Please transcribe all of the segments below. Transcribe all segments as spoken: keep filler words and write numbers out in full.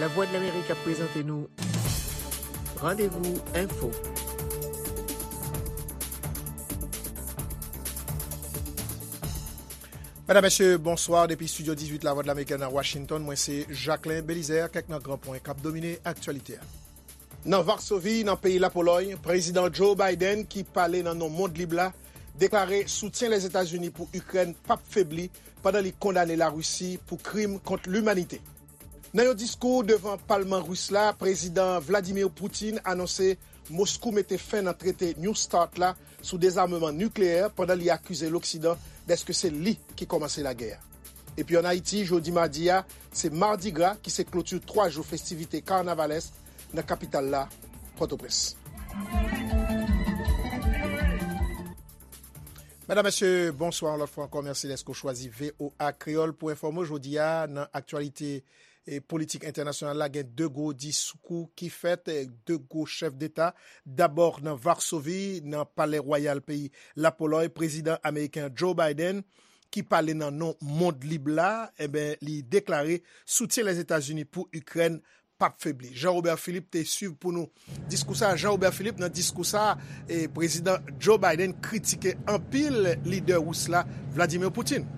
Lavwadlamerik ap prezante nou Randevou Enfo. Medam, mesye, bonswa. Depi estidyo dizuit Lavwadlamerik nan Washington, mwen se Jacquelin Belizaire. Kèk nan gran pwen k ap domine aktyalite a. Nan Varsovi, nan peyi Lapolòy, Prezidan Joe Biden, ki pale nan non mond lib la, deklare soutyen Lèzetazini pou Ikrèn p ap febli pandan li kondane Larisi pou krim kont limanite. Nan yon diskou devan palman ris la, Prezidan Vladimir Putin anonse Moskou mete fen nan trete New START la sou dezameman nikleyè pandan li akize Loksidan dèske se li ki kòmanse lagè a. Epi ann Ayiti, jodi madi a, se Mardi Gras ki se kloti twa jou festivite kanavalès nan kapital la, Pòtoprens. Medam, mesye, bonswa yon lòt fwa ankò. Mèsi dèske w chwazi V O A Kreyòl pou enfòme w jodi a nan aktyalite e politik entènasyonal la. Gen de gwo diskou ki fèt, e, de gwo chèf deta. Dabò, nan Varsovi, nan Palè Wayal peyi Lapolòy, prezidan ameriken Joe Biden, ki pale nan non mond lib la, enben, li deklare soutyen Lèzetazini pou Ikrèn p ap febli. Jean Robert Philippe te swiv pou nou diskou sa. Jean Robert Philippe, nan diskou sa, e, prezidan Joe Biden kritike anpil lidè ris la, Vladimir Putin.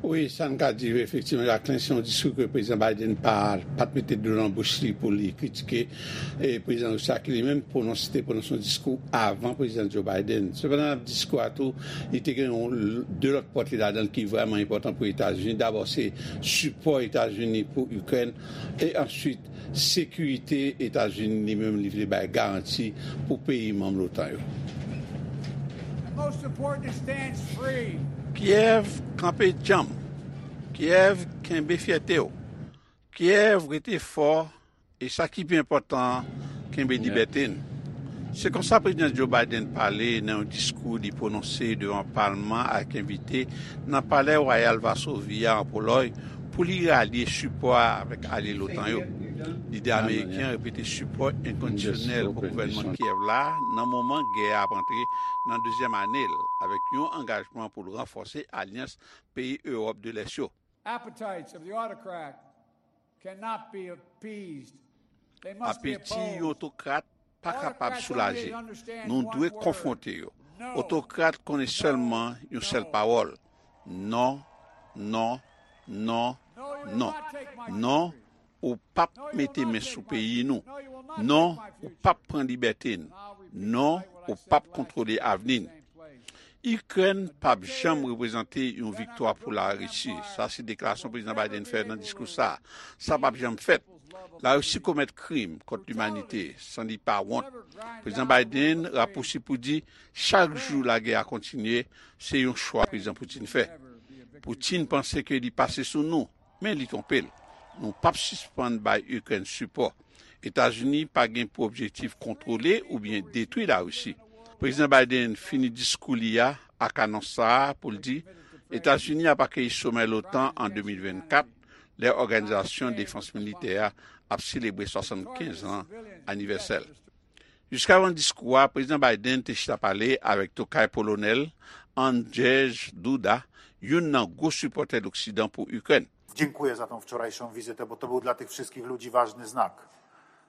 Wi, sa n ka di, efektivman, Jacquelin, se yon diskou ke prezidan Biden pa, pa t mete dlo nan bouch li pou li kritike, e, prezidan ris la, ki li menm pwononse, te pwononse yon diskou avan prezidan Joe Biden. Sepandan, nan diskou a tou, li te gen yon l-, de lòt pòtre ladan l ki vrèman enpòtan pou Etazini. Dabò, se sipò Etazini pou Ikrèn, e answit, sekirite Etazini li menm li vle bay garanti pou peyi manm lotan yo. Most important is stand free. Kyèv, kanpe djanm. Kyèv, kenbe fyète w. Kyèv, rete fò. E sa ki pi enpòtan, kenbe libète n. Se konsa Prezidan Joe Biden pale nan yon diskou li pwononse devan palman ak envite nan Palè Wayal Vasovi a an Polòy pou li ralye sipò a avèk alye lotan yo. Lidè ameriken an repete sipò enkondisyonèl pou gouvènman Kyèv la nan moman gè a ap antre nan dezyèm ane l, avèk yon angajman pou l ranfòse alyans peyi Ewòp de Lès yo. Appetites of the autocrat cannot be appeased. They must be opposed. Apeti yon otokrat pa kapab soulaje. Nou dwe konfwonte yo. Otokrat konnen sèlman yon sèl pawòl. Non, non, non, non. Non, ou p ap mete men sou peyi nou. Non, ou p ap pran libète n. Non, ou p ap kontwole avni n. Ikrèn p ap janm reprezante yon viktwa pou Larisi. Sa se deklarasyon Prezidan Biden fè nan diskou sa a. Sa p ap janm fèt. Larisi komèt krim kont limanite san li pa wont. Prezidan Biden rapousiv pou di, chak jou lagè a kontinye, se yon chwa Prezidan Putin fè. Putin panse ke li pase sou nou, men li twonpe l. Nou p ap sispann bay Ikrèn sipò. Etazini pa gen pou objektif kontwole oubyen detwi Larisi. Prezidan Biden fini diskou li a ak anons sa a pou l di, Etazini ap akeyi somè lotan an de mil vennkat, lè Òganizasyon Defans Militè a ap selebre swasannkenz an anivèsè l. Jiskavan diskou a, Prezidan Biden te chita pale avèk tokay polonè l, Andrzej Duda, youn nan gwo sipòtè Loksidan pou Ikrèn. Dziękuję za tą wczorajszą wizytę, bo to był dla tych wszystkich ludzi ważny znak.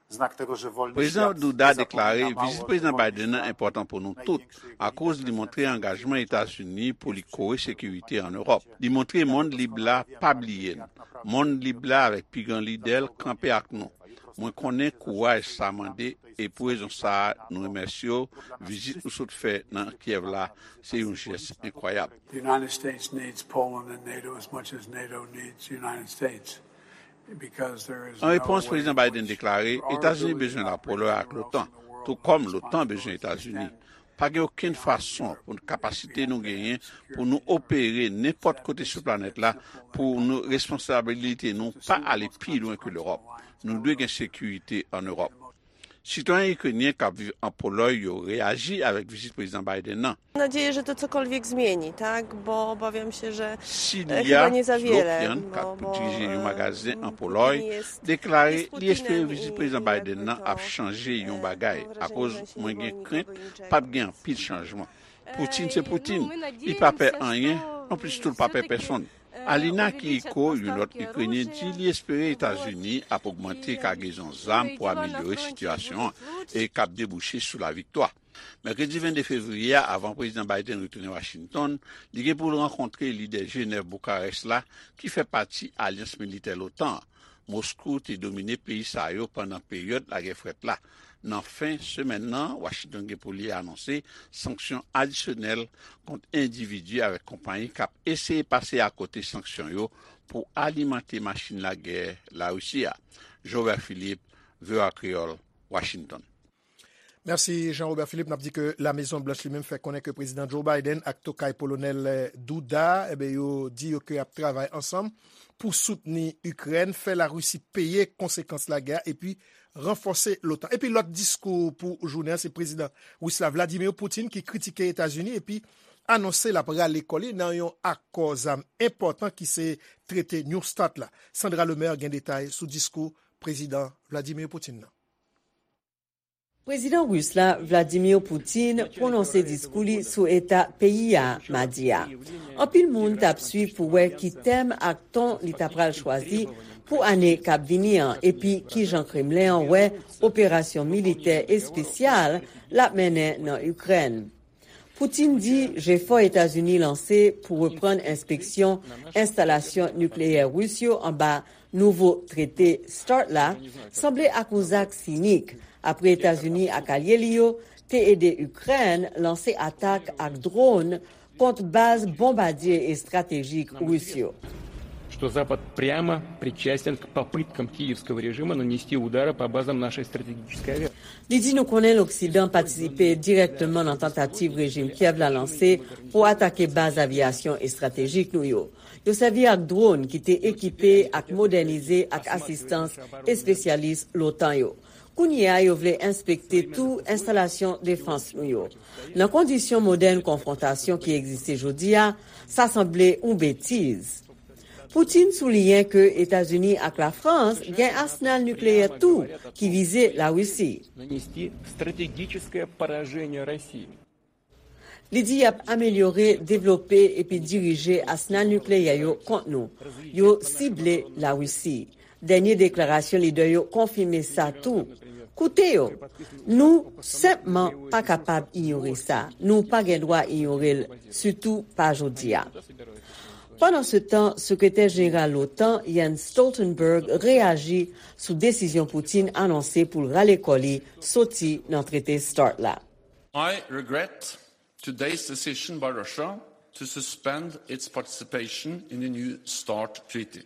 Znak tego, że wolny Prezidan świat Duda nie deklare zapomina mało, vizit Prezidan że wolny Biden an enpòtan pou nou tout, akoz li montre angajman Etazini pou li kore sekirite an Ewòp. Li montre mond lib la pa bliye n. Mond lib la avèk pi gran lidè l kanpe ak nou. Mwen konnen kouraj sa mande, e pou rezon sa a, nou remèsye w. Vizit nou sot fè nan Kyèv la, se yon jès enkwayab. The United States needs Poland and NATO as much as NATO needs the United States. Because there is no way in which Etazini bezwen Lapolòy ak lotan, tou kòm lotan bezwen Etazini. Pa gen okenn fason pou kapasite nou genyen pou nou opere nenpòt kote sou planèt la, pou nou responsabilite nou pa ale pi lwen ke Lewòp. Nou dwe gen sekirite an Ewòp. Sitwayen ikrenyen k ap viv an Polòy yo reyaji avèk vizit Prezidan Biden nan. Mam nadzieję, że to cokolwiek zmieni, tak? Bo obawiam się, że Si e, li a, chyba nie za Flo wiele, Pian, k ap dirije yon magazen an Polòj, deklare li espere vizit Prezidan Biden nan ap chanje yon bagay, akoz mwen gen krent p ap gen anpil chanjman. Putin se Putin, li pa pè anyen, Non plis tou l pa pè pèsonn. Alina Kiyiko, yon lòt Ikrenyen, di li espere Etazini ap ogmante kagezon zam pou amelyore sitiyasyon an e k ap debouche sou laviktwa. Mèkredi vennde fevriye a, avan Prezidan Biden retounen Washington, li gen pou l rankontre lidè Jenèv Boukarès la, ki fè pati alyans militè l'OTAN an. Moskou te domine peyi sa yo pandan peryòd lagè frèt la. Nan fen semèn nan, Washington gen pou li anonse sanksyon adisyonèl kont endividi avèk konpayi k ap eseye pase akote sanksyon yo pou alimante machin lagè Larisi a. Jovè Filip, V O A Kreyòl, Washington. Mèsi Jean Robert Philippe. N ap di ke La Mezon Blanch li menm fè konnen ke Prezidan Joe Biden ak tokay Polonèl, eh, Duda, enben, yo di yo ke y ap travay ansanm pou soutni Ikrèn, fè Larisi peye konsekans lagè a, epi ranfòse l'OTAN. Epi lòt diskou pou jounen an, se Prezidan Ris la Vladimir Putin ki kritike Etazini epi anonse l ap rale kò li nan yon akò zam enpòtan ki se trete New START la. Sandra Lemaire gen detay sou diskou Prezidan Vladimir Putin nan. Prezidan ris la, Vladimir Putin, pwononse diskou li sou eta peyi a madi a. Anpil moun t ap swiv pou wè ki tèm ak ton li ta pral chwazi pou ane k ap vini an, epi kijan Kremlen an wè operasyon militè espesyal l ap mennen nan Ikrèn. Putin di jefò Etazini lanse pou reprann enspeksyon enstalasyon nikleyè ris yo anba nouvo trete START la sanble ak yon zak sinik, apre Etazini ak alye li yo te ede Ikrèn lanse atak ak dwòn kont baz bonbadye estratejik ris yo. Что Запад прямо причастен к попыткам киевского режима нанести удары по базам нашей стратегической авиации. Li di nou konnen Loksidan patisipe dirèkteman nan tantativ rejim Kyèv la lanse pou atake baz aviyasyon estratejik nou yo. Yo sèvi ak dwòn ki te ekipe ak modènize ak asistans espesyalis l'OTAN yo. Kounye a, yo vle enspekte tou enstalasyon defans nou yo. Nan kondisyon modèn konfwontasyon ki egziste jodi a, sa sanble yon betiz. Putin souliyen ke Etazini ak Lafrans gen asnal nikleyè tou ki vize Larisi. Li di y ap amelyore, devlope epi dirije asnal nikleyè yo kont nou. Yo sible Larisi. Dènye deklarasyon lidè yo konfime sa tou. Koute yo. Nou senpman pa kapab inyore sa. Nou pa gen dwa inyore l, sitou pa jodi a. Pandansetan, Sekretè Jeneral l'OTAN, Jens Stoltenberg, reyaji sou desizyon Putin anonse pou l rale kò li soti nan trete START la. I regret today's decision by Russia to suspend its participation in the new START treaty.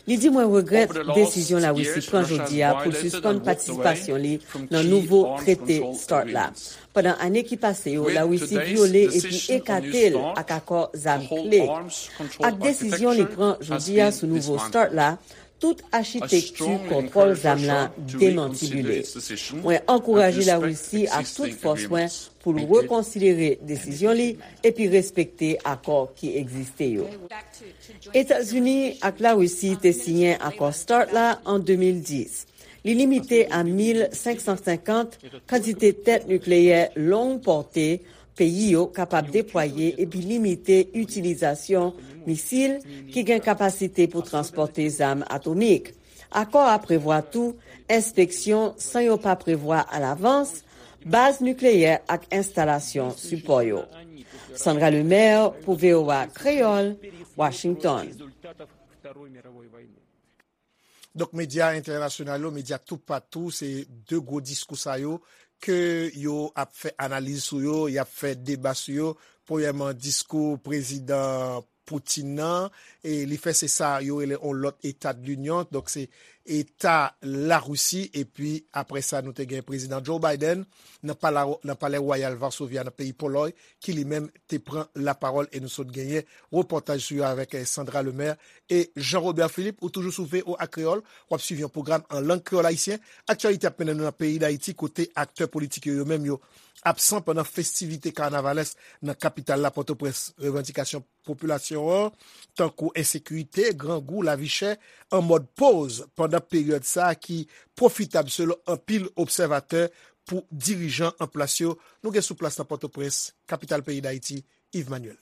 Li di, mwen regrèt desizyon Larisi pran jodi a pou l sispann patisipasyon li nan nouvo trete START la. Pandan ane ki pase yo, Larisi vyole epi ekate l ak akò zam kle. Ak desizyon li pran jodi a sou nouvo START la, tout achitekti kontwòl zam la demantibile. Mwen ankouraje Larisi ak tout fòs mwen pou l rekonsidere desizyon li epi respekte akò ki egziste yo. Etazini ak Larisi te siyen akò START la an de mil dis. Li limite a mil senk san senkant kantite tèt nikleyè long pòte peyi yo kapab deplwaye epi limite itilizasyon misil ki gen kapasite pou transpòte zam atomik. Akò a prevwa tou enspeksyon san yo pa prevwa alavans baz nikleyè ak enstalasyon sipò yo. Sandra Lemaire pou V O A Kreyòl, Washington. Donk, medya entènasyonal yo, medya toupatou, se de gwo diskou sa yo ke yo ap fè analiz sou yo, y ap fè deba sou yo. Premyèman, diskou prezidan Putin nan, e li fè se sa yo rele yon lòt Eta de l'Inyon, donk se Eta Larisi, epi apre sa, nou te gen prezidan Joe Biden nan pala, nan palè wayal Varsovya nan peyi Polòy, ki li menm te pran lapawòl e nou sot genyen repòtaj sou yo avèk, eh, Sandra Lemaire e Jean Robert Philippe. Ou toujou sou V O A Kreyòl, w ap swiv yon pwogram an lang kreyòl ayisyen. Aktyalite ap mennen nou nan peyi Dayiti, kote aktè politik yo, yo menm yo absan pandan festivite kanavalès nan kapital la, Pòtoprens. Revandikasyon popilasyon an, tankou ensekirite, grangou, lavi chè, an mòd poz pandan peryòd sa a ki pwofitab selon anpil obsèvatè pou dirijan an plas yo. Nou gen sou plas nan Pòtoprens, kapital peyi Dayiti, Yves Manuel.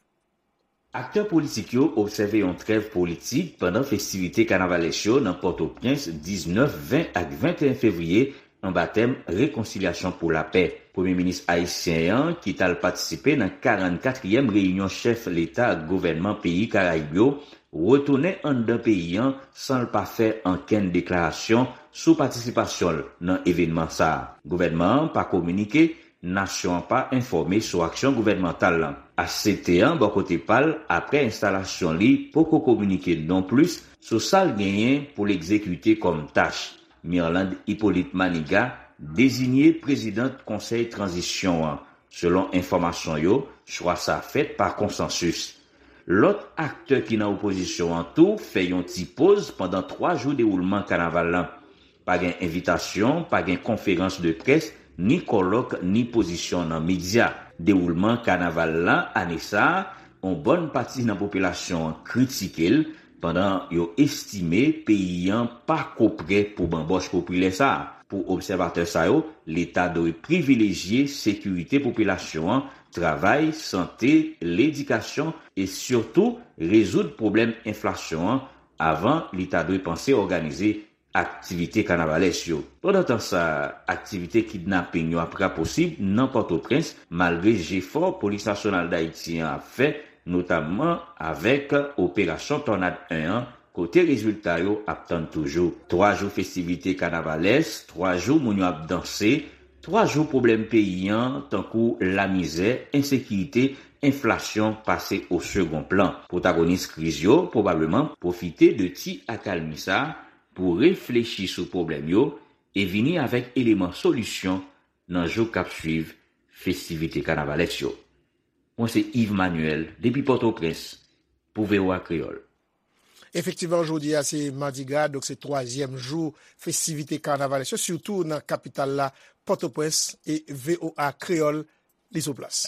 Aktè politik yo obsève yon trèv politik pandan festivite kanavalès yo nan Pòtoprens diznèf, ven ak venteyen fevriye anba tèm Rekonsilyasyon pou lapè. Premye minis ayisyen an, ki t al patisipe nan karannkatriyèm reyinyon chèf leta ak gouvènman peyi Karayib yo, retounen anndan peyi an san l pa fè ankenn deklarasyon sou patisipasyon l nan evènman sa a. Gouvènman an pa kominike, nasyon an pa enfòme sou aksyon gouvènmantal lan. H C T an, bò kote pa l, apre enstalasyon li, poko kominike nonplis sou sa l genyen pou l egzekite kòm tach. Mirlande Hyppolite Manigat deziye prezidant konsèy tranzisyon an. Selon enfòmasyon yo, chwa sa a fèt pa konsansis. Lòt aktè ki nan opozisyon an tou fè yon ti poz pandan twa jou dewoulman kanaval lan. Pa gen envitasyon, pa gen konferans de près, ni kòlòk, ni pozisyon nan medya. Dewoulman kanaval lan ane sa a, yon bòn pati nan popilasyon an kritike l, pandan yo estime peyi an pako prè pou banbòch popilè sa a. Pou obsèvatè sa yo, Leta dwe privilejye sekirite popilasyon an, travay, sante, ledikasyon e sitou rezoud pwoblèm enflasyon an avan li ta dwe panse òganize aktivite kanavalès yo. Pandan tan sa, aktivite kidnaping yo ap raposib nan Pòtoprens, malgre jefò Polis Nasyonal Dayiti an ap fè, notamman avèk Operasyon Tònad en an, kote rezilta yo ap tann toujou. Twa jou festivite kanavalès, twa jou moun yo ap danse, twa jou pwoblèm peyi an, tankou lamizè, ensekirite, enflasyon pase o segon plan. Pwotagonis kriz yo pwobableman pwofite de ti akalmi sa a pou reflechi sou pwoblèm yo e vini avèk eleman solisyon nan jou k ap swiv festivite kanavalès yo. Mwen se Yves Manuel depi Pòtoprens pou V O A Kreyòl. Efektivman, jodi a se Madigra, donk se twazyèm jou festivite kanavalès yo, sitou nan kapital la, Pòtoprens, e V O A Kreyòl li sou plas.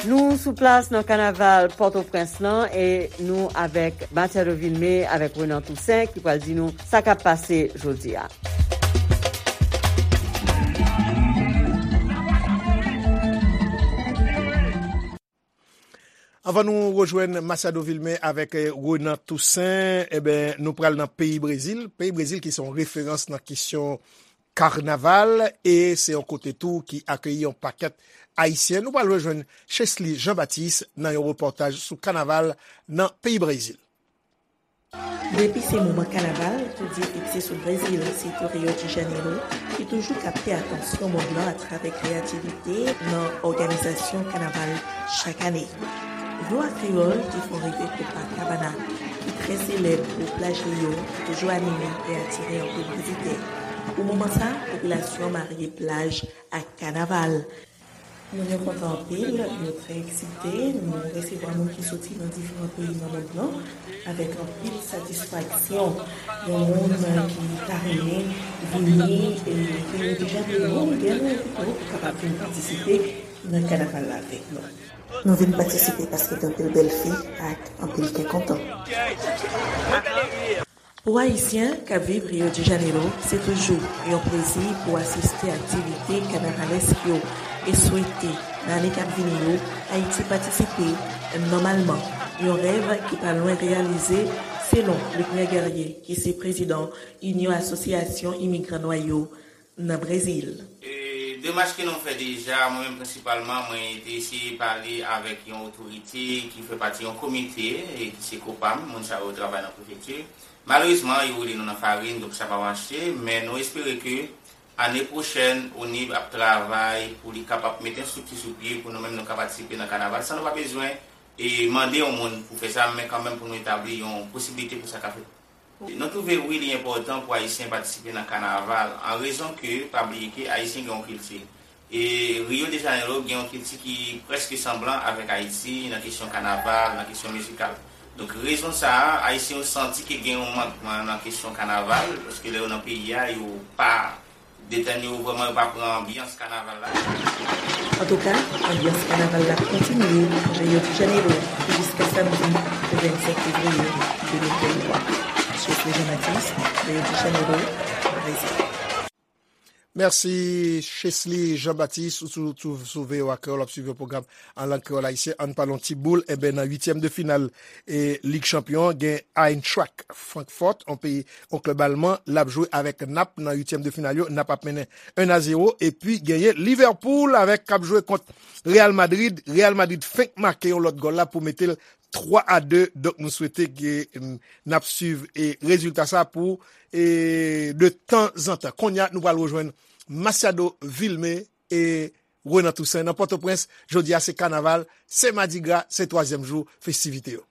Nou sou plas nan kanaval Pòtoprens lan e nou avèk Matiado Vilmé, avèk Renan Toussaint ki pral di nou sa k ap pase jodi a. Anvan nou rejwenn Matiado Vilmé avèk, eh, Renan Toussaint, eben, nou pral nan peyi Brezil. Peyi Brezil ki se yon referans nan kesyon kanaval, e se yon kote tou ki akeyi yon pakèt Ayisyen. Nou pral rejwenn Chesly Jean Baptiste nan yon repòtaj sou kanaval nan peyi Brezil. Depi se moman kanaval, tou zye fikse sou Brezil, sitou Rio de Janeiro, ki toujou kapte atansyon mond lan atravè kreyativite nan òganizasyon kanaval chak ane. V O A Kreyòl te fè yon revè Copacabana, ki trè selèb pou plaj li yo, ki toujou anime e atire anpil vizitè. Pou moman sa, popilasyon an marye plaj ak kanaval. Moun yo kontan anpil, yo trè eksite. Nou resevwa moun ki soti nan diferan peyi nan mond lan avèk anpil satisfaksyon. Yon moun ki ta renmen vini, e, Rio de Janeiro, oubyen nou envite w pou kapab vin patisipe nan kanaval la avèk nou. Nou vin patisipe paske gen anpil bèl fi ak anpil kè kontan. Pou Ayisyen k ap viv Rio de Janeiro, se toujou yon plezi pou asiste aktivite kanavalèsk yo e swete, nan ane k ap vini yo, Ayiti patisipe nòmalman. Yon rèv ki pa lwen reyalize, selon Luckner Guerrier, ki se prezidan Inyon Asosyasyon Imigran Nwa yo nan Brezil. E, demach ke nou fè deja, mwen menm prensipalman, mwen te eseye pale avèk yon otorite ki fè pati yon komite, e ki se COPAM, moun sa yo travay nan prefekti. Malerezman, yo woule nou nan farin, donk sa pa mache, men nou espere ke ane pwochèn, ONIB ap travay pou li kapab mete yon estrikti sou pye pou nou menm nou ka patisipe nan kanaval, san nou pa bezwen, e, mande yon moun pou fè sa, men kanmenm pou nou etabli yon posiblite pou sa ka fèt. Nou twouve wi li enpòtan pou Ayisyen patisipe nan kanaval, an rezon ke, pa bliye ke Ayisyen gen yon kilti. E Rio de Janeiro gen yon kilti ki prèske sanblan avèk Ayiti nan kesyon kanaval, nan kesyon mizikal. Donk, rezon sa a, Ayisyen yo santi ke gen yon mankman nan kesyon kanaval, paske lè yo nan peyi a, yo pa detène yo vrèman, yo pa pran anbyans kanaval la. Antouka, anbyans kanaval la kontinye Rio de Janeiro jiska samdi vennsenk fevriye de mil venntwa. Chesly Jean Baptiste, Rio de Janeiro, Brezil. Mèsi, Chesly Jean Baptiste, ou sou, sou, sou V O A Kreyòl, w ap swiv yon pwogram an lang kreyòl ayisyen. Ann pale yon ti boul, enben, nan uityèm de final e Lig Chanpyon, gen Eintracht Francfort, yon peyi, yon klèb alman, l ap jwe avèk Nap nan uityèm de final yo. Nap ap mennen un a zéro, epi genyen Liverpool avèk k ap jwe kont Real Madrid. Real Madrid fenk make yon lòt gòl la pou mete l twa a de. Donk, nou swete ke, mm, n ap swiv e rezilta sa pou, e, de tanzantan. Kounye a, nou pral rejwenn Masiado Vilmé e Renan Toussaint nan Pòtoprens. Jodi a, se kanaval, se madigra, se twazyèm jou festivite yo.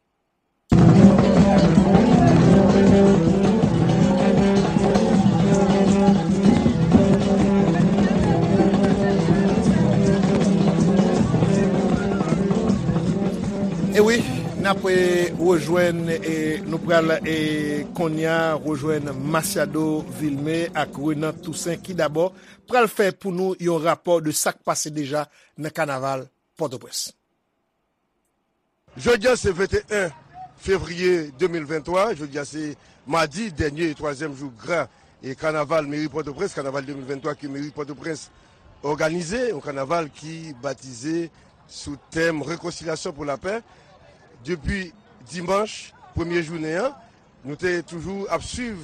E wi, n ap, e, rejwenn, e, nou pral, e, kounye a rejwenn Masiado Vilmé ak Renan Toussaint ki dabò pral fè pou nou yon rapò de sa k pase deja nan kanaval Pòtoprens. Jodi a se venteyen fevriye de mil venntwa, jodi a se madi, dènye e twazyèm jou gra e kanaval meri Pòtoprens, kanaval de mil venntwa ke meri Pòtoprens òganize, yon kanaval ki batize sou tèm Rekonsilyasyon pou lapè. Depi dimanch premye jounen an, nou te toujou ap swiv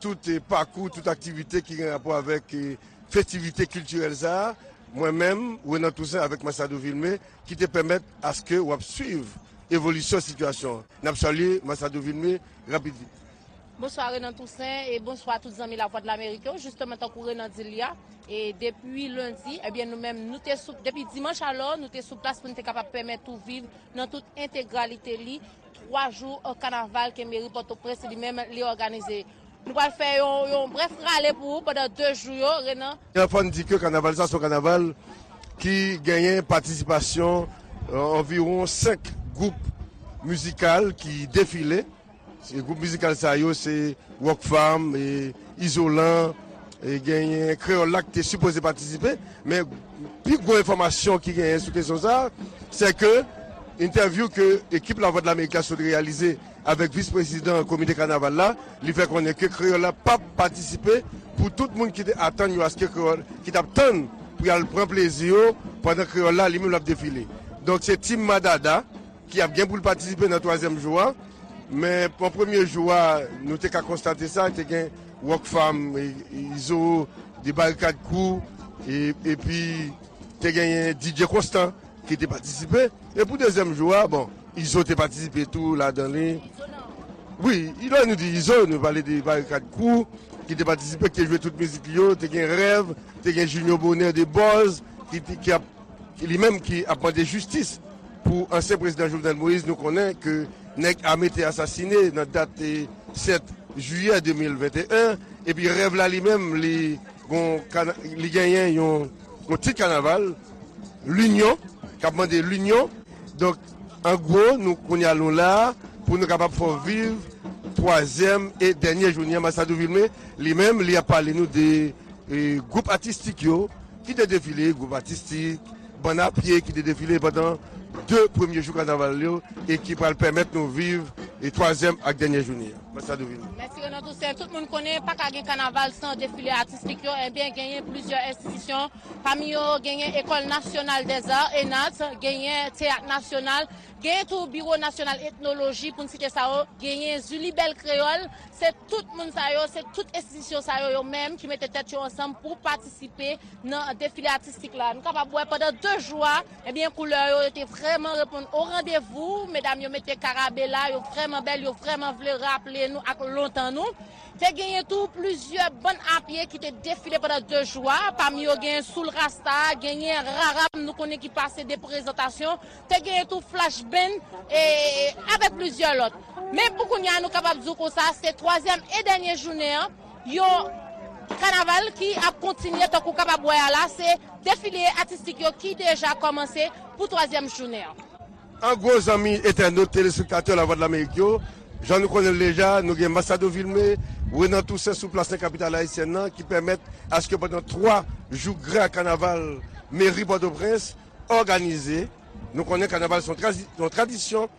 tout, eh, pakou, tout aktivite ki gen rapò avèk, eh, festivite kiltirèl sa a. Mwen menm, Renan Toussaint avèk Masiado Vilmé, ki te pèmèt aske w ap swiv evolisyon sitiyasyon an. N ap salye Masiado Vilmé rapid vit. Bonswa Renan Toussaint e bonswa tout zanmi Lavwadlamerik yo. Jisteman, tankou Renan di l la, e depi lendi, ebyen, nou menm, nou te sou, depi dimanch alò, nou te sou plas pou n te kapab pèmèt ou viv nan tout entegralite li twa jou, eh, kanaval ke meri Pòtoprens li menm li òganize. Nou pral fè yon, yon brèf rale pou ou pandan de jou yo, Renan. Fò n di ke kanaval sa se yon kanaval ki genyen patisipasyon, eh, anviwon senk gwoup mizikal ki defile. Se gwoup mizikal sa yo, se Rockfam, e Izolan, e genyen Kreyòl la ki te sipoze patisipe, men pi gwo enfòmasyon ki genyen sou kesyon sa, se ke entèvyou ke ekip Lavwadlamerik la sot reyalize avèk vis prezidan komite kanaval la, li fè konnen ke Kreyòl la p ap patisipe pou tout moun ki te atann yo aske Kreyòl, ki t ap tann pou y al pran plezi yo pandan Kreyòl la li menm l ap defile. Donk se Team Madada ki ap gen pou l patisipe nan twazyèm jou a. Men pou premye jou a, nou te ka konstate sa, te gen Rockfam, e, e, Izo, de Barikad Crew, e, epi te genyen D J Constant ki te patisipe. E pou dezyèm jou a, bon, Izo te patisipe tou ladan li. Wi, lè nou di Izo, nou pale de Barikad Crew ki te patisipe, ki te jwe tout mizik li yo, te gen Rèv, te gen Junior Bonheur de Buzz, ki, ki ap li menm ki ap mande jistis pou ansyen prezidan Jovenel Moïse, nou konnen ke nèg ame te asasine nan dat, eh, sèt jiyè de mil venteyen, epi Rèv la li menm, li gon kana-, li genyen yon, yon tit kanaval, Linyon, k ap mande linyon. Donk, an gwo, nou kounye a nou la pou nou kapab fè w viv twazyèm e dènye jounen an. Masiado Vilmé, li menm, li ap pale nou de, eh, gwoup atistik yo, ki te defile, gwoup atistik, bann a pye ki te defile pandan de premye jou kanaval yo e ki pral pèmèt nou viv e twazyèm ak dènye jounen an. Masiado Vilmé. Mèsi Renan Toussaint. Tout moun konnen pa ka gen kanaval san defile atistik yo. Ebyen, genyen plizyè enstitisyon. Pami yo, genyen École Nationale des Arts, ENART, genyen Teyat Nasyonal, genyen tou Biwo Nasyonal Etnoloji, pou n site sa yo, genyen Zilibèl Kreyòl. Se tout moun sa yo, se tout enstitisyon sa yo, yo menm ki mete tèt yo ansanm pou patisipe nan defile atistik la. Nou kapab wè pandan de jou a, ebyen, koulè yo, yo te vrèman reponn o randevou. Medam yo mete karabela, yo vrèman bèl, yo vrèman vle raple nou ak lontan nou. Te genyen tou plizyè bann a pye ki te defile pandan de jou a. Pami yo genyen Soul Rasta, genyen Raram, nou konnen ki pase de prezantasyon. Te genyen tou Flash Band, e, avèk plizyè lòt. Men pou kounye a, nou kapab di w konsa, se twazyèm e dènye jounen an, yon kanaval ki ap kontinye, tankou w kapab wè a la, se defile atistik yo ki deja kòmanse pou twazyèm jounen an. An gwo, zanmi entènot, telespektatè Lavwadlamerik yo, jan nou konnen l deja, nou gen Masiado Vilmé, Renan Toussaint sou plas nan kapital ayisyèn nan, ki pèmèt aske pandan twa jou gra kanaval meri Pòtoprens òganize. Nou konnen kanaval se yon trazi-, yon tradisyon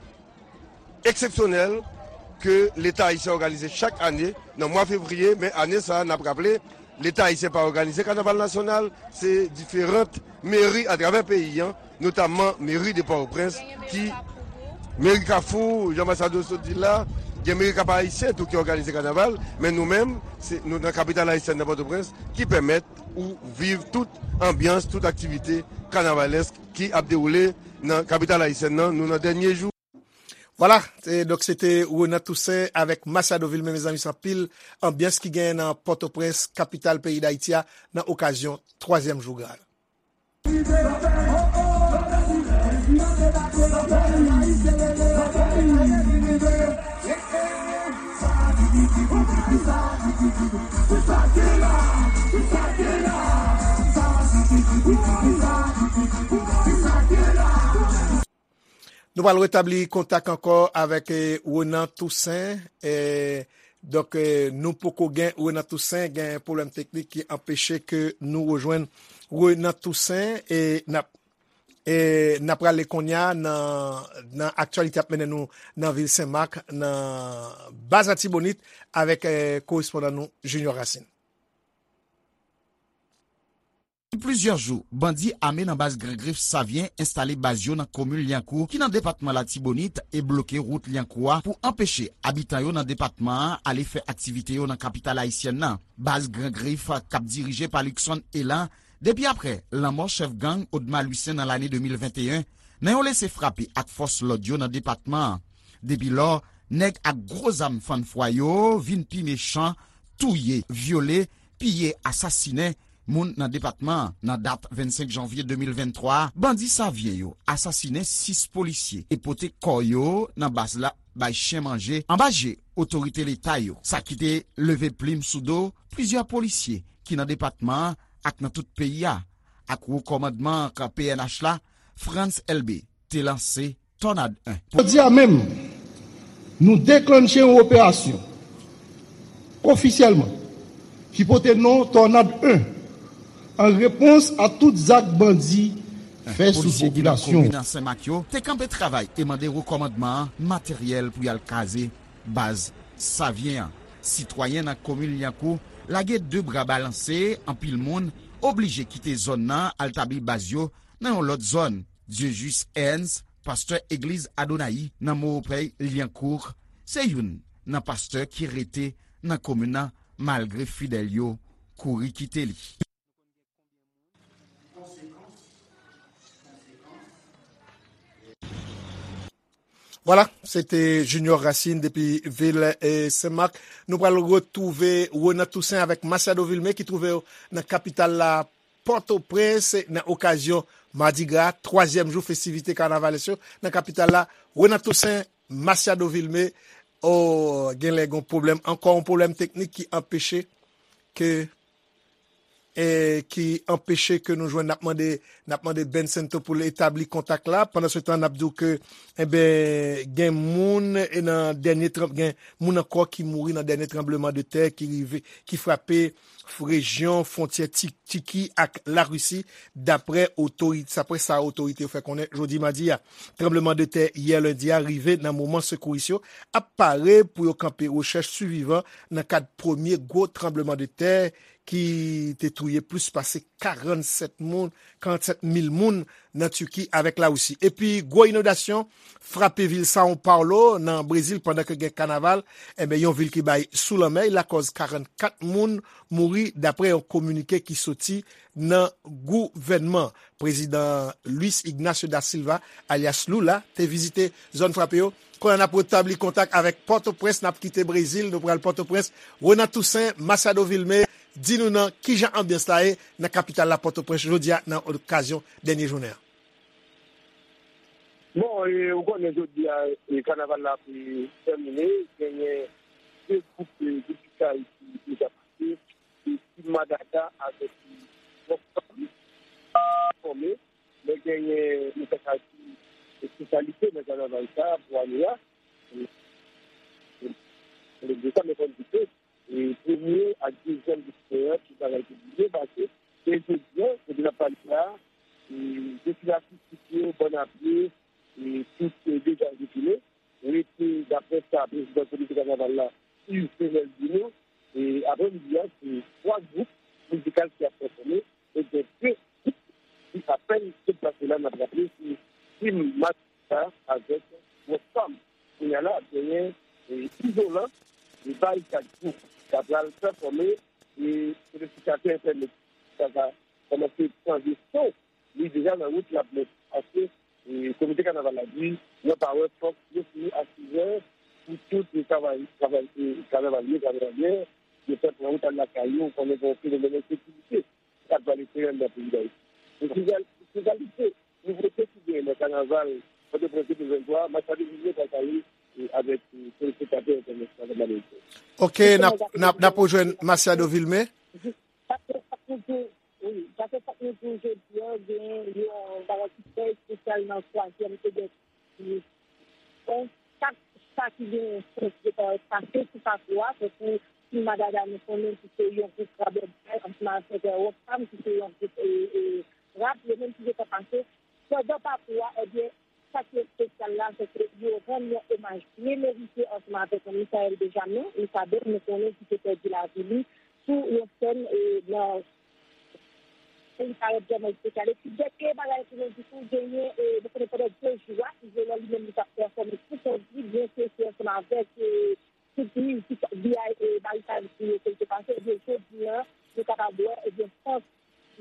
eksepsyonèl ke Leta ayisyen òganize chak ane nan mwa fevriye, men ane sa a, n ap raple, Leta ayisyen pa òganize kanaval nasyonal, se diferan meri atravè peyi a, notamman meri de Pòtoprens, ki meri Kafou, jan Masado sot di l la, gen meri Kap Ayisyen tou ki òganize kanaval, men nou menm, se nou nan kapital ayisyèn nan Pòtoprens, ki pèmèt ou viv tout anbyans, tout aktivite kanavalèsk ki ap dewoule nan kapital ayisyèn nan, nou nan dènye jou. Vwala, e, donk se te Renan Toussaint avèk Masiado Vilmé, mezanmi, se anpil anbyans ki genyen nan Pòtoprens, kapital peyi Dayiti a, nan okazyon twazyèm jou Graal. Nou pral retabli kontak ankò avèk, eh, Renan Toussaint. Eh, donk, eh, nou poko gen Renan Toussaint, gen pwoblèm teknik ki anpeche ke nou rejwenn Renan Toussaint. E n ap, e n ap prale kounye a nan, nan aktyalite ap mennen nou nan vil Senmak, nan baz Latibonit, avèk, eh, korespondan nou Junior Racine. Depi plizyè jou, bandi ame nan baz Gran Grif Savyen enstale baz yo nan komin Lyankou, ki nan depatman Latibonit, e bloke wout Lyankou a pou anpeche abitan yo nan depatman an ale fè aktivite yo nan kapital ayisyèn nan. Baz Gran Grif, k ap dirije pa Luckson Elan, depi aprè lanmò chèf gang Odma Lucien nan lane de mil venteyen, nan yon lese frape ak fòs lòd yo nan depatman an. Depi lò, nèg ak gwo zam fann fwa yo vin pi mechan, touye, vyole, piye, asasinen moun nan depatman an. Nan dat vennsenk janvye de mil venntwa a, bandi Savyen yo asasinen sis polisye e pote kò yo nan baz la bay chen manje anba je otorite leta yo. Sa ki te leve plim sou do plizyè polisye ki nan depatman an ak nan tout peyi a, ak wo kòmandman P N H la, Frantz Elbé, te lanse Tònad en. Jodi a menm, nou deklanche yon operasyon ofisyèlman ki pote non Tònad en, an repons a tout zak bandi fè sou popilasyon. Polisye ki nan komin Senmak yo te kanpe travay e mande wo kòmandman an materyèl pou y al kraze baz Savyen an. Sitwayen nan komin Lyankou lage de bra balanse, anpil moun oblije kite zòn nan al tabli baz yo nan yon lòt zòn. Dieujuste Ernst, pastè egliz Adonaï nan Moropey, Lyankou, se youn nan pastè ki rete nan komin nan malgre fidèl yo kouri kite li. Vwala, se te Junior Racine depi vil, eh, Senmak. Nou pral retwouve Renan Toussaint avèk Masiado Vilmé ki twouve yo nan kapital la, Pòtoprens, nan okazyon Madigra, twazyèm jou festivite kanavalès yo nan kapital la. Renan Toussaint, Masiado Vilmé, o, genlè gon pwoblèm, ankò yon pwoblèm teknik ki anpeche ke, e, ki anpeche ke nou jwenn. N ap mande, n ap mande Ben Sento pou l etabli kontak la. Pandan se tan, n ap di w ke, enben, gen moun, e, nan dènye tranb-, gen moun ankò ki mouri nan dènye tranbleman de tè ki rive, ki frape rejyon fwontyè Ti-, Tiki ak Larisi, daprè otori-, daprè sa otorite yo fè konnen jodi madi a. Tranbleman de tè yè lendi a rive nan moman sekouris yo ap pare pou yo kanpe rechèch sivivan nan kad premye gwo tranbleman de tè ki te touye plis pase karannsèt moun, karannsèt mil moun nan Tiki avèk Larisi. Epi gwo inondasyon frape vil São Paulo nan Brezil pandan ke gen kanaval, enben, yon vil ki bay sou lanmè, lakòz karannkat moun mouri, daprè yon kominike ki soti nan gouvènman. Prezidan Luiz Ignacio da Silva, alyas Lula, te vizite zòn frape yo. Kounye a n ap retabli kontak avèk Pòtoprens, n ap kite Brezil, nou pral Pòtoprens. Renan Toussaint, Masiado Vilmé, di nou nan kijan anbyans la ye nan kapital la, Pòtoprens, jodi a, nan okazyon dènye jounen an. Bon, e, ou konnen jodi a, e, kanaval la ap, e, tèmine, genyen de gwoup, e, de Tiki ki deja pase, e, Team Madada avèk, e, Rock Band fòme, men genyen, nou ta ka di, espesyalite nan kanaval sa a pou ane a. E, e, de sa, men fò n di ke, e, premye ak dezyèm de jounen an, tout bagay te byen pase. E jodi a, kote n ap pale la, e, depi atistik yo, bann a pye, e, tout, e, deja retounen. Rete, daprè sa prezidan komite kanaval la, Yves Senel, di nou, e, aprèmidi a, se twa gwoup mizikal ki ap pèfòme, e gen de gwoup ki apèn deplase la, n ap raple, se Team Machista avèk Rockfam. Kounye a la, ap genyen e, Izolan, e Barikad Group, k ap pral pèfòme, e telespektatè entènèt sa va kòmanse chanje son. Li deja nan wout, l ap monte. Paske, e, komite kanaval la di, nan pawòl, fòk yo fini a sizè pou tout travay, travay, e, kanavalye, kanavalye, yo fè pran wout al lakay yo, konnen gen yon fenomèn ensekirite k ap vale teren nan peyi Dayiti. E, sou real-, sou realite, nouvote ki genyen nan kanaval Pòtoprens de mil venntwa, Machado Vilmé pral pale, e, avèk, e, telespektatè entènèt la nan Ameriken. Ok, n ap, n ap, n ap rejwenn Machado Vilmé. Paske fòk nou di, wi, paske fòk nou di jodi a, gen yon bagay ki trè espesyal nan twazyèm edisyon. Donk, chak sa ki gen sans de parèt pase sou pakou a, tankou Team Madada, nou konnen ki se yon gwoup rabòday, ansanm avèk, e, Rockfam, ki se yon gwoup, e, e, rap, yo menm ki gentan pase. Pandan pakou a, ebyen, sa ki espesyal la, se ke yo rann yon omaj byen merite ansanm avèk Michael Benjamin, Mica Ben, nou konnen ki te pèdi lavi li sou yon sèn, e, nan peyi Karayib vrèman espesyal. Epi, dènye bagay pou nou di tou, genyen, e, nou konnen pandan de jou a, Izolan li menm li t ap pèfòme pou kont li, byen ke se ansanm avèk, e, tout mizik B I, e, Barikad Group yo ke l te pase, ebyen, jodi a, nou kapab wè, ebyen, Fòs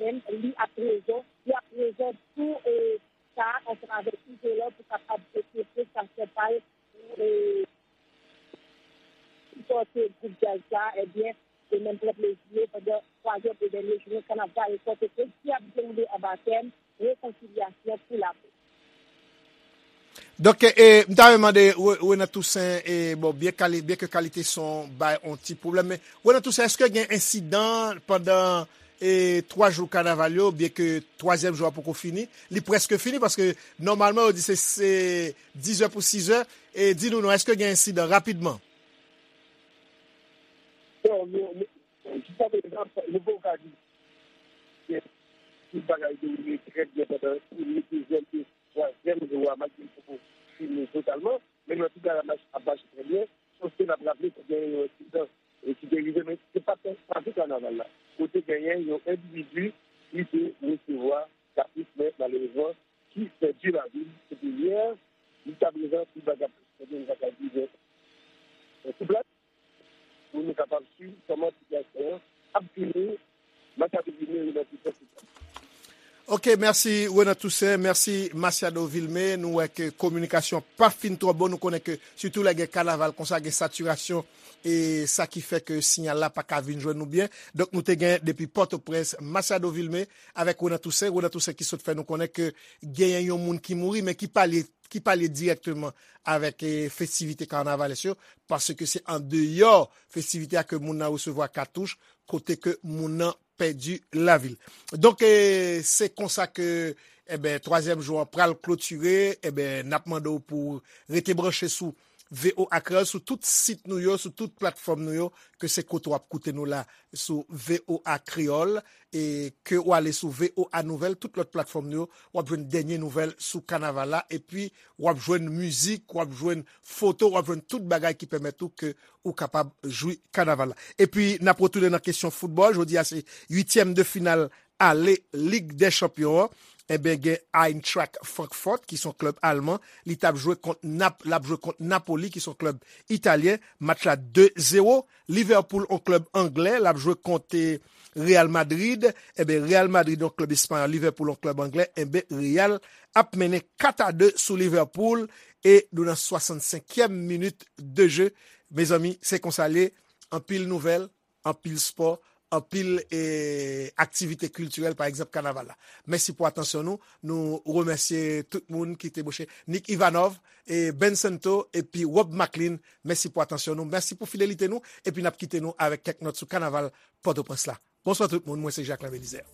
menm, li ap prezan, li ap prezan tou, e, sa a ansanm avèk Izolan pou kapab pote prestasyon pa l pou, e, sipòte gwoup djaz sa a, ebyen, e menm pran plezi yo pandan twazyèm e dènye jounen kanaval Pòtoprens ki ap dewoule anba tèm Rekonsilyasyon pou lapè. Donk, e, m ta renmen mande Re-, Renan Toussaint, e, bon, byen kali-, byen ke kalite son bay on ti pwoblèm, men Renan Toussaint, èske gen ensidan pandan, e, twa jou kanaval yo, byen ke twazyèm jou a poko fini, li prèske fini, paske nòmalman yo di se, se dizè pou sizè, e di nou non, èske gen ensidan rapidman? Bon, nou, nou, jiska prezan, nou poko ka di si tout bagay dewoule trè byen pandan premye, dezyèm e twazyèm jou a, malgre l poko fini totalman, men nan tout bagay ap mache, ap mache trè byen, sof ke n ap raple ke genyen yon ensidan, e, ki te rive, men se pa t, pa tout kanaval la, kote genyen yon endividi ki te resevwa kapris, men malerezman, ki pèdi lavi l. Epi yè, jiska prezan, tout bagay ap mache trè byen, nou pa ka di, men, e, sou plas, pou nou kapab swiv kòman sitiyasyon an ap vini, Machado Vilmé, Renan Toussaint, sou plas. Ok, mèsi Renan Toussaint, mèsi Machado Vilmé. Nou wè ke kominikasyon pa fin twò bon. Nou konnen ke sitou lè gen kanaval konsa, gen satirasyon, e sa ki fè ke siyal la pa ka vin jwenn nou byen. Donk, nou te gen depi Pòtoprens, Machado Vilmé avèk Renan Toussaint. Renan Toussaint ki sot fè nou konnen ke genyen yon moun ki mouri, men ki pa lye ki pa lye dirèkteman avèk, e, festivite kanavalès yo, paske se andeyò festivite a ke moun nan resevwa katouch, kote ke moun nan pèdi lavi l. Donk, e, se konsa ke, e ben, twazyèm jou an pral klotire, e ben, n ap mande w pou rete branche sou V O A Kreyòl, sou tout sit nou yo, sou tout platfòm nou yo, ke se kote w ap koute nou la, sou V O A Kreyòl, e ke w ale sou V O A Nouvèl, tout lòt platfòm nou yo, w ap jwenn dènye nouvèl sou kanaval la, epi w ap jwenn mizik, w ap jwenn foto, w ap jwenn tout bagay ki pèmèt ou ke ou kapab jwi kanaval la. Epi, n ap retounen nan kesyon foutbòl, jodi a se uityèm de final ale Lig dè Chanpyon an. Enben, gen Eintracht Frankfurt, ki se yon klèb alman. Li t ap jwe kont Nap-, l ap jwe kont Napoli, ki se yon klèb italyen. Match la de zewo. Liverpool, yon klèb anglè, l ap jwe kont, e, Real Madrid. Enben, Real Madrid, yon klèb espanyòl, Liverpool, yon klèb anglè. Enben, Real ap mennen kat a de sou Liverpool. E nou nan swasannsenkyèm minit de je. Mezanmi, se konsa l ye. Anpil nouvèl, anpil spò, anpil, e, aktivite kiltirèl, pa egzanp, kanaval la. Mèsi pou atansyon nou. Nou remèsye tout moun ki te branche. Nick Ivanov, e, Ben Santo, epi Rob Maclean. Mèsi pou atansyon nou. Mèsi pou fidelite nou. Epi n ap kite nou avèk kèk nòt sou kanaval Pòtoprens la. Bonswa tout moun. Mwen se Jacquelin Belizaire.